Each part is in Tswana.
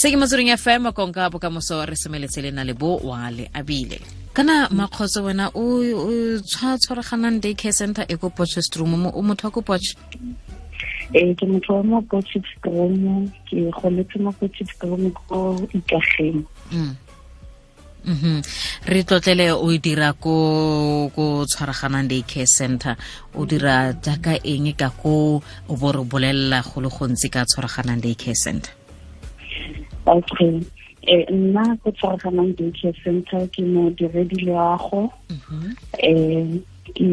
Se ke Motsweding FM, konka bokamoso, re semeletse le na le bo wa le abile. Kana Makgotso, wena o tshwaraganang day care center e ko Potchefstroom, o motho wa ko Potch? Ee, ke motho wa mo Potchefstroom, ke goletse mo Potchefstroom ko Ikageng. Re tlotlele, o dira ko Tshwaraganang Day Care Center, o dira jaaka eng ka ko, o bo re bolelela go le gontsi ka Tshwaraganang Day Care Center? Okay, nna ko Tshwaraganang Day Care Center ke modiredi loago. Ke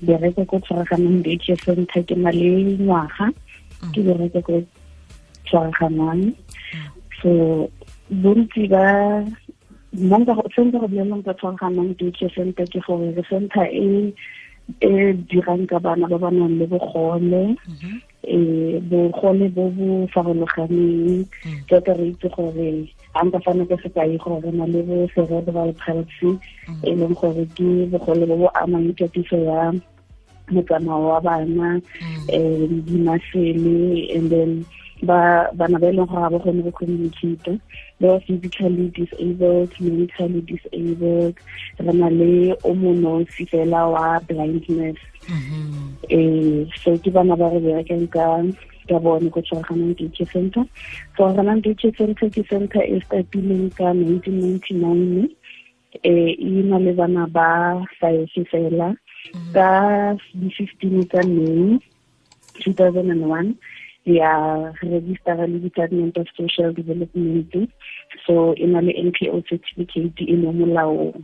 bereka ko Tshwaraganang Day Care Center, ke na le ngwaga ke bereka ko Tshwaraganang. So bontsi ba nna nka se nka go bolelelang ka Tshwaraganang Day Care Center ke gore re center e e dirang ka bana ba ba nang le bogole, bogole bo bo farologaneng. Jaaka re itse gore, ga nka fana ka sekai gore re na le bo cerebral palsy, e leng gore ke bogole bo bo amang katiso ya motsamao wa bana, di-muscle, and then ba bana ba e leng gore ga ba kgone go communicate, ba physically disabled, mentally disabled. Re na le o monosi fela wa blindness. So ke bana ba re berekang ka bone ko Tshwaraganang Day Care Center. Tshwaraganang Day Care Center ke center e startileng ka 1999, e na le bana ba five fela. Ka di-15 tsa May 2001 ya registera le Department of Social Development, so e na le NPO certificate, e mo molaong.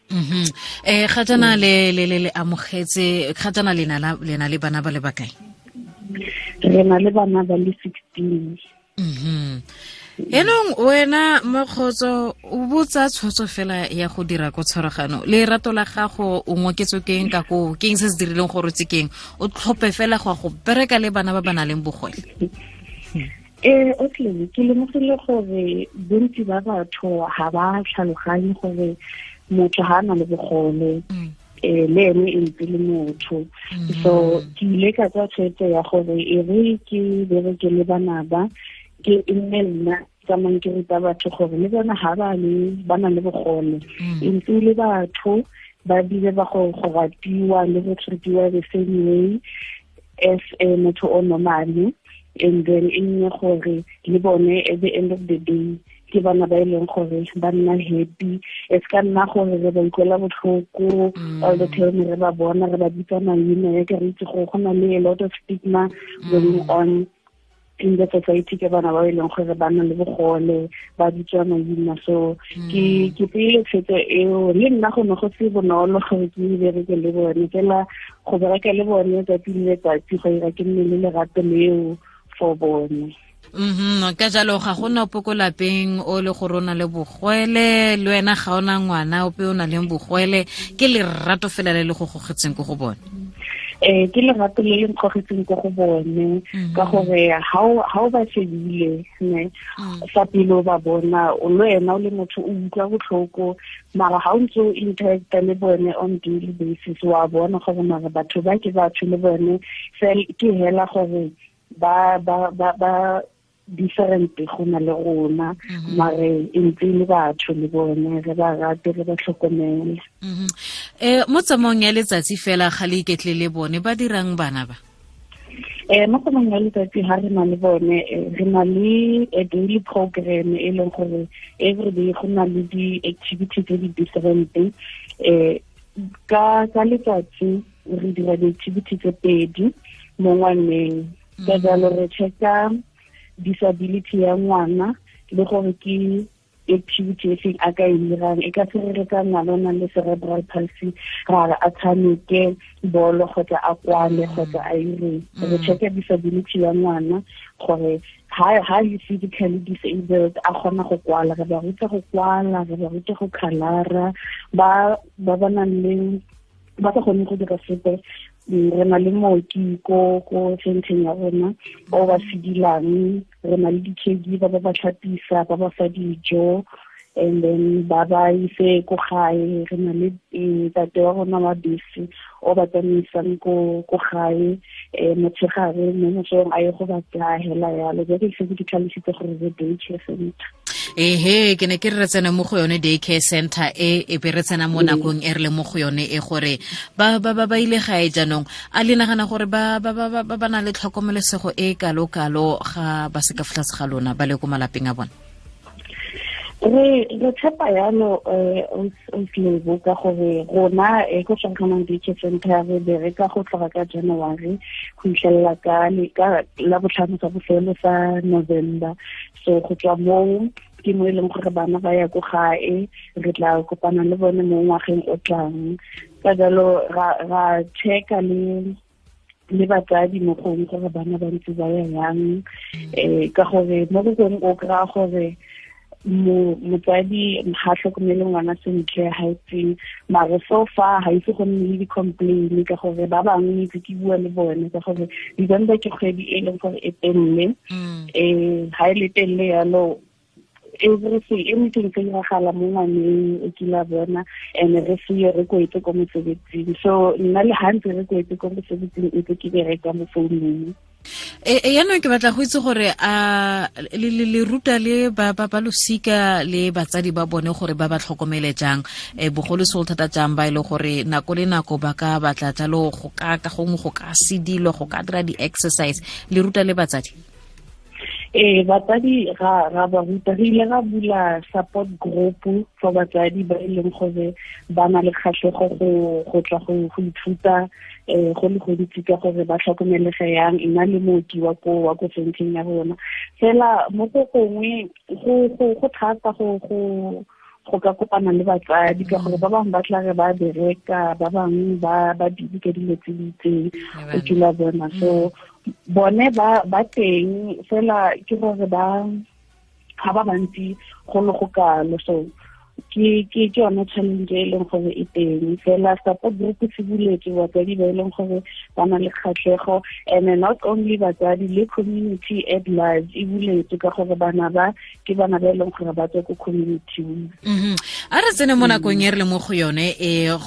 Ga jana le amogetse, ga jana le na le bana ba le bakae? Re na le bana ba le 16. Enong wena Mokgotso, o botsa tshwetso fela ya go dira ko Tshwaragano, lerato la gago o ngoketswe keng ka ko, keng se se dirileng gore tse keng o tlhophe fela go ya go bereka le bana ba ba nang le bogole? Okay, ke lemogile gore bontsi ba batho ga ba tlhaloganye gore motho ga a na le bogole, le ene e ntse le motho. So ke ile ka tsaya tshwetso ya gore e re ke bereke le bana ba, ke e nne nna tsamayng ke ruta batho gore le bona ga ba le ba na le bogole, e ntse le batho, ba bile ba go ratiwa le go treatiwa the same way as a motho o normally, and then e nne gore le bone at the end of the day ke bana ba e leng gore ba nna happy. E se ka nna gore re ba utlwela botlhoko all the time re ba bona, re ba bitsa maina, ya ke re itse gore go na le a lot of stigma going on in the society ke bana ba e leng gore ba na le bogole, ba bitswa maina. So ke tseile tshwetso eo. Le nna go ne go se bonolo gore ke bereke le bone fela, go bereka le bone tsatsi le letsatsi go ira ke nne le lerato leo for bone. Ka jalo ga gona ope ko lapeng o le gore o na le bogwele, le wena ga ona ngwana ope o na leng bogwele, ke lerato fela le le go gogetseng ko go bone? Ke lerato le le nkgogetseng ko go bone, ka gore ha o ba shebile ne fa pele, o ba bona, o le wena o le motho o utlwa botlhoko, mara ga o ntse o interacta le bone on daily basis, wa bona gore mara batho ba ke batho le bone, ke hela gore ba different go na le rona, mare e ntse le batho le bone, re ba rate, re ba tlhokomele. Mo tsamaong ya letsatsi fela ga le iketle le bone, ba dirang bana ba? Mo tsamaong ya letsatsi ha re na le bone, re na le a daily program e leng gore every day go na le di-activity tse di different. Ka letsatsi re dira di-activity tse pedi mo ngwaneng. Ka jalo re checka disability ya ngwana le gore ke activity e feng a ka e dirang. E ka se re ka ngwana o nang le cerebral palsy ra re a tshameke bolo kgotsa a kwale kgotsa a ireng. Re checka disability ya ngwana gore ha le physically disabled a kgona go kwala, re ba ruta go kwala, re ba ruta go khalara. Ba ba nang le ba sa kgone go dira sepe, re na le mooki ko centeng ya rona o ba sedilang, re na le di-caregiver ba ba tlhapisa, ba ba fa dijo. And then ba ba ise ko gae, re na le ntate wa rona wa bese o ba tsamaisang ko gae motshegare mo mosong a ye go ba tsaya hela yalo. Jaaka ke setse ke tlhalositse gore re day care center. Ehe, ke ne ke re tsena mo go yone day care center e be re tsena mo nakong e re le mo go yone e gore ba ba ba ba ile gae jaanong. A le nagana gore ba ba ba ba ba na le tlhokomelesego e kalo-kalo ga ba se ka fa tlase ga lona ba le ko malapeng a bone? Re tshepa yalo Lebo ka gore rona ko Tshwaraganong Day Care Center re bereka go tloga ka January go fitlhelela ka la botlhano sa bofelo sa November. So go tswa moo ke mo e leng gore bana ba ya ko gae, re tla kopana le bone mo ngwageng o tlang. Ka jalo ra checka le batsadi mo gongwe gore bana ba ntse ba ya yang, ka gore mo go gongwe o kry-a gore motsadi ga tlhokomele ngwana sentle, ga itseng, mare so far ga ise go nne le di-complain ka gore ba bangwe itse ke bua le bone ka gore December ke kgwedi e leng gore e telele. Ga e le telele yalo, everything anything se iragala mo ngwaneng o kile a bona, and re seye re kwetse ko mosebetsing. So nna le ga ntse re kwetse ko mosebetsing ntse ke bereka mo founung. Yaanong ke batla go itse gore a le ruta le ba ba losika le batsadi ba bone gore ba ba tlhokomele jang, bogolosegolo thata jang ba e le gore nako le nako ba ka batla jalo go ka ka gongwe go ka sedilo, go ka dira di-exercise. Le ruta le batsadi? Batsadi ra ba ruta. Re ile ra bula support group for batsadi ba e leng gore ba na le kgatlhego go tla go ithuta go le gontsi ka gore ba tlhokomelege yang, nna le mooki wa ko centeng ya rona. Fela mo go gongwe go thata go ka kopana le batsadi ka gore ba bangwe ba tla re ba bereka, ba bangwe ba busy ka dilo tse di itseng, o kile bona. So bone ba teng fela ke gore ba ga ba bantsi go le go kalo. So ke yone challenge e leng gore e teng. Fela support group se buletswe batsadi ba e leng gore ba na le kgatlhego, and not only batsadi, le community at large e buletswe ka gore bana ba ke bana ba e leng gore ba tswa ko community. A re tsene mo nakong e re le mo go yone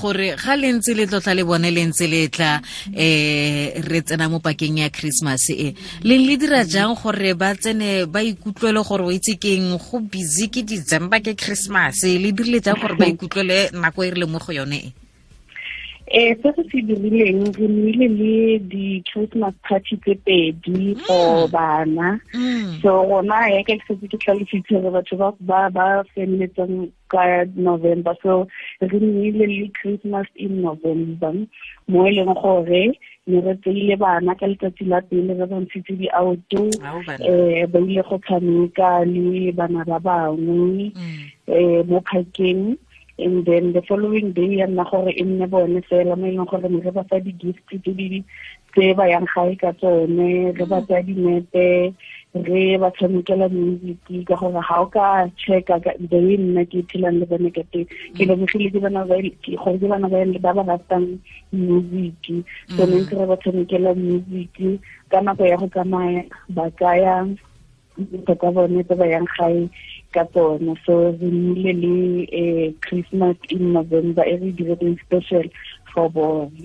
gore ga le ntse le tlotla le bone le ntse le tla re tsena mo pakeng ya Christmas e le le dira jang gore ba tsene ba ikutlwele gore o itse keng go busy ke December ke Christmas, le dirile jang gore ba ikutlwele nako e re le mo go yone e? Se se se dirileng, re nnile le di-Christmas party tse pedi for bana. So rona ya ke setse ke tlhalositse gore batho ba ba feleletsang ka November, so re nnile le Christmas in November mo e leng gore ne re tseile bana ka letsatsi la pele, re ba ntshitse di-auto, ba ile go tshameka le bana ba bangwe mo parkeng. And then the following day ya nna gore e nne bone fela mo e leng gore ne re ba fa di-gift tse ba yang gae ka tsone, re ba tsaya dinepe, re ba tshamekela music ka gore ga o ka checka the way nna ke phelang le bone ka teng, ke lemogile ke bana ba gore ke bana ba ba ratang music. So ne ntse re ba tshamekela music ka nako ya go tsamaya, ba tsaya dintho tsa bone tse ba yang gae ka tsone. So re nnile le Christmas in November e re diretseng special for bone.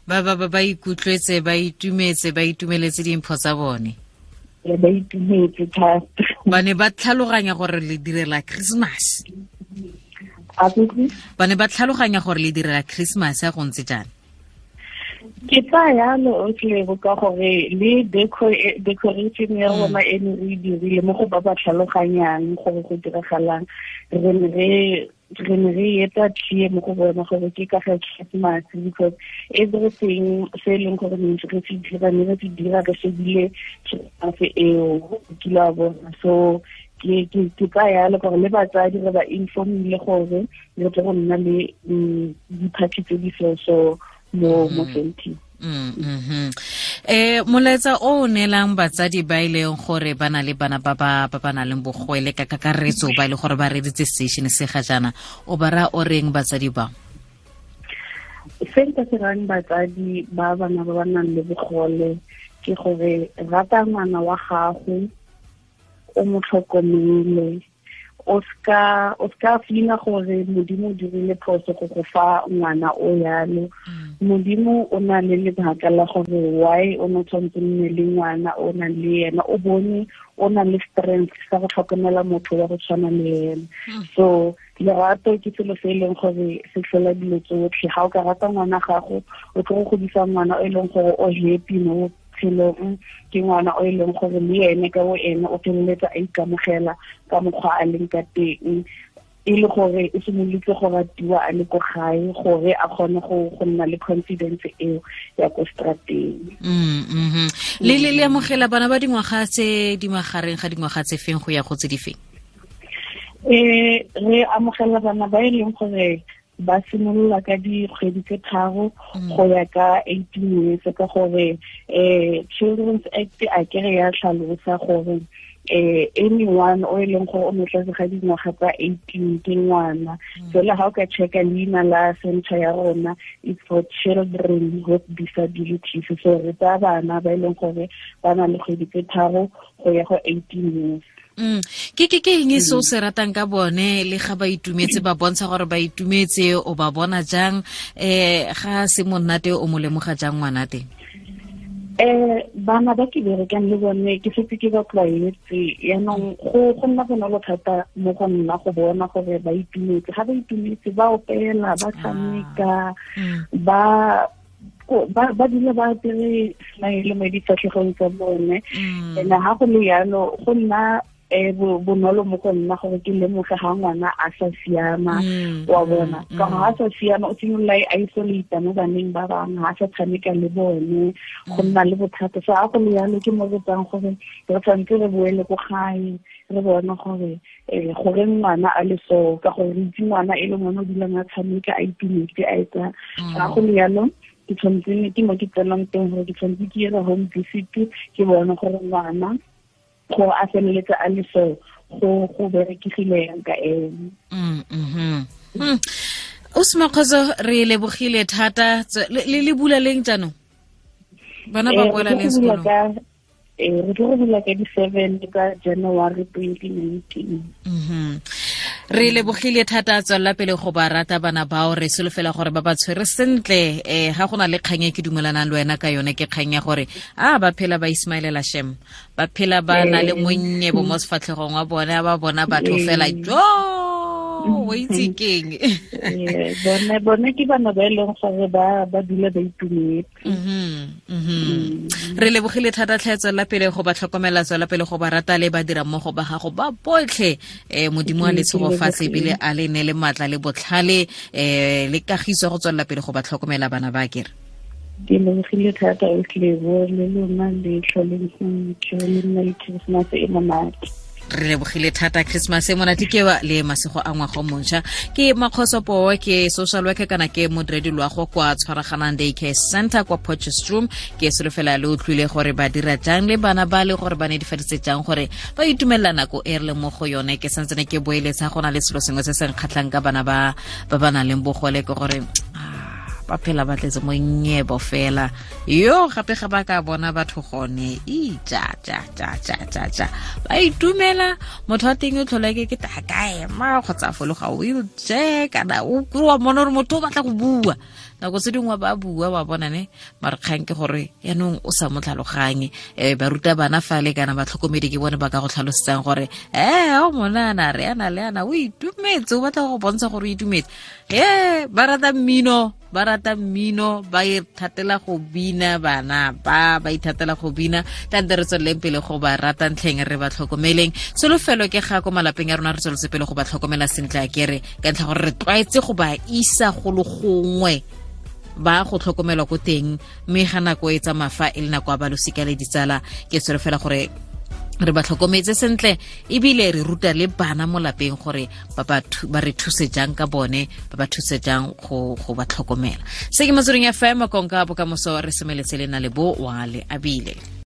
Ba ba ba ikutlwetse, ba itumetse, ba itumeletse dimpho tsa bone. Ba itumetse thata. Ba ne ba tlhaloganya gore le direla Christmas. Ba ne ba tlhaloganya gore le direla Christmas ya go ntse jang? Ke tsaya yalo Lebo ka gore le decoration ya rona e ne re dirile mo go ba ba tlhaloganyang gore go diragalang, re ne re etsa clear mo go bona gore ke ka ga Christmas, because everything se e leng gore ne re se dira, ne re se dira re shebile Christmas eo kile wa bona. So ke tsaya yalo gore le batsadi re ba informile gore re tle go nna le di-party tse di so mo centeng. Molaetsa o neelang batsadi ba e leng gore ba na le bana ba ba nang le bogwele ka kakaretso ba e leng gore ba reditse station se ga jaana, o ba raya o reng batsadi ba? Se nka se rayang batsadi ba bana ba ba nang le bogole ke gore rata ngwana wa gago, o mo tlhokomele, O ska feela gore Modimo o dirile phoso go go fa ngwana o yalo. Modimo o na le lebaka la gore why o ne tshwanetse nne le ngwana o nang le ena, o bone o na le strength sa go tlhokomela motho wa go tshwana le ena. So lerato ke selo se e leng gore se tlhola dilo tsotlhe. Ga o ka rata ngwana gago, o tlo go godisa ngwana o e leng gore o happy mo botshelong, ke ngwana o e leng gore le ene ka bo ene o feleletsa a ikamogela ka mokgwa a leng ka teng, e le gore o simolotse go ratiwa a le ko gae gore a kgone go nna le confidence eo ya ko strateng. Le amogela bana ba dingwaga tse di magareng ga dingwaga tse feng go ya go tse di feng? Re amogela bana ba e leng gore ba simolola ka dikgwedi tse 3 go ya ka 18 years, ka gore Children's Act a kere ya tlhalosa gore anyone o e leng gore o mo tlase ga dingwaga tsa 18 ke ngwana. Fela ga o ka checka leina la center ya rona, it's for children with disabilities. So re tsaya bana ba e leng gore ba na le kgwedi tse 3 go ya go 18 years. Ke eng se o se ratang ka bone le ga ba itumetse, ba bontsha gore ba itumetse, o ba bona jang? Ga se monate o mo lemoga jang ngwana teng? Bana ba ke berekang le bone ke setse ke ba tlwaetse, yaanong go nna bonolo thata mo go nna go bona gore ba itumetse. Ga ba itumetse ba opela, ba tshameka, ba dula ba apere smile mo difatlhegong tsa bone. And ha go le yalo go nna bonolo mo go nna gore ke lemoge ga ngwana a sa siama, wa bona. Ka gore ha sa siama o simolola a isolate mo baneng ba bangwe, ha sa tshameka le bone, go nna le bothata. So ha go le yalo ke mo re tsang gore re tshwanetse re boele ko gae re bone gore gore ngwana a le so, ka gore re itse ngwana e le ngwana o dulang a tshameka a itumetse a etsa. Ha go le yalo ke tshwanetse ke mo ke tsenang teng gore ke tshwanetse ke ire home visit, ke bone gore ngwana go a feleletsa a le so go berekegile yang ka ene. O Semakgotso, re lebogile thata. Le bula leng jaanong? Bana ba boela leng sekolong? Re tlo go bula ka di-7 ka January 2019. Re lebogile thata, tswelela pele go ba rata bana bao, re solofela gore ba ba tshwere sentle. Ga go na le kgang e ke dumelanang le wena ka yone, ke kgang ya gore a ba phela ba ismailela shem, ba phela ba na le monnye bo mo sefatlhegong wa bone, ba bona batho fela jo o itse keng. Bone ke bana ba e leng gore ba dula ba itumetse. Re lebogile thata tlhe, tswelela pele go ba tlhokomela, tswelela pele go ba rata le ba dira mmogo ba gago ba botlhe. Modimo a le tshegofatse ebile a le ne le matla le botlhale le kagiso go tswelela pele go ba tlhokomela bana ba kere. Ke lebogile thata o tlebo le lona le tlholeng sentle, le nna le Christmas e monate. Re lebogile thata, Christmas e monate ke wa le masego a ngwaga o montšha. Ke Makgoso Poo, ke social worker kana ke modiredi loago kwa Tshwaraganang Day Care Center kwa Potchefstroom. Ke solofela le utlwile gore ba dira jang le bana ba le gore ba netefaditse jang gore ba itumelela nako e re leng mo go yone. Ke santsene ke boeletsa go na le selo sengwe se se nkgatlhang ka bana ba ba nang le bogole, ke gore ba phela ba tletse mo nyebo fela. Yo gape ga ba ka bona batho gone i ja ja ja ja ja ja ba itumela. Motho wa teng o tlhola ke ta kae ma kgotsa fologa wheelchair kana o kry-a mona gore motho o batla go bua, nako tse dingwe ba bua wa bona ne, mare kgang ke gore yaanong o sa mo tlhaloganye. Ba ruta bana fale kana batlhokomedi ke bone ba ka go tlhalosetsang gore o monana re ana le ana o itumetse, o batla go bontsha gore o itumetse. Ba rata mmino, ba rata mmino, ba ithatela go bina, bana ba ithatela go bina. Tante re tsweleleng pele go ba rata ntlheng, re ba tlhokomeleng. Solofelo ke ga ko malapeng a rona re tsweletse pele go ba tlhokomela sentle a kere, ka ntlha gore re tlwaetse go ba isa go le gongwe ba go tlhokomelwa ko teng, mme ga nako e tsamaya fa e le nako ya ba losika le ditsala. Ke solofela gore re ba tlhokometse sentle ebile re ruta le bana mo lapeng gore ba re thuse jang ka bone, ba ba thuse jang go ba tlhokomela. Se ke Motsweding FM, konka bokamoso, re semeletse le na le bo wa le abile.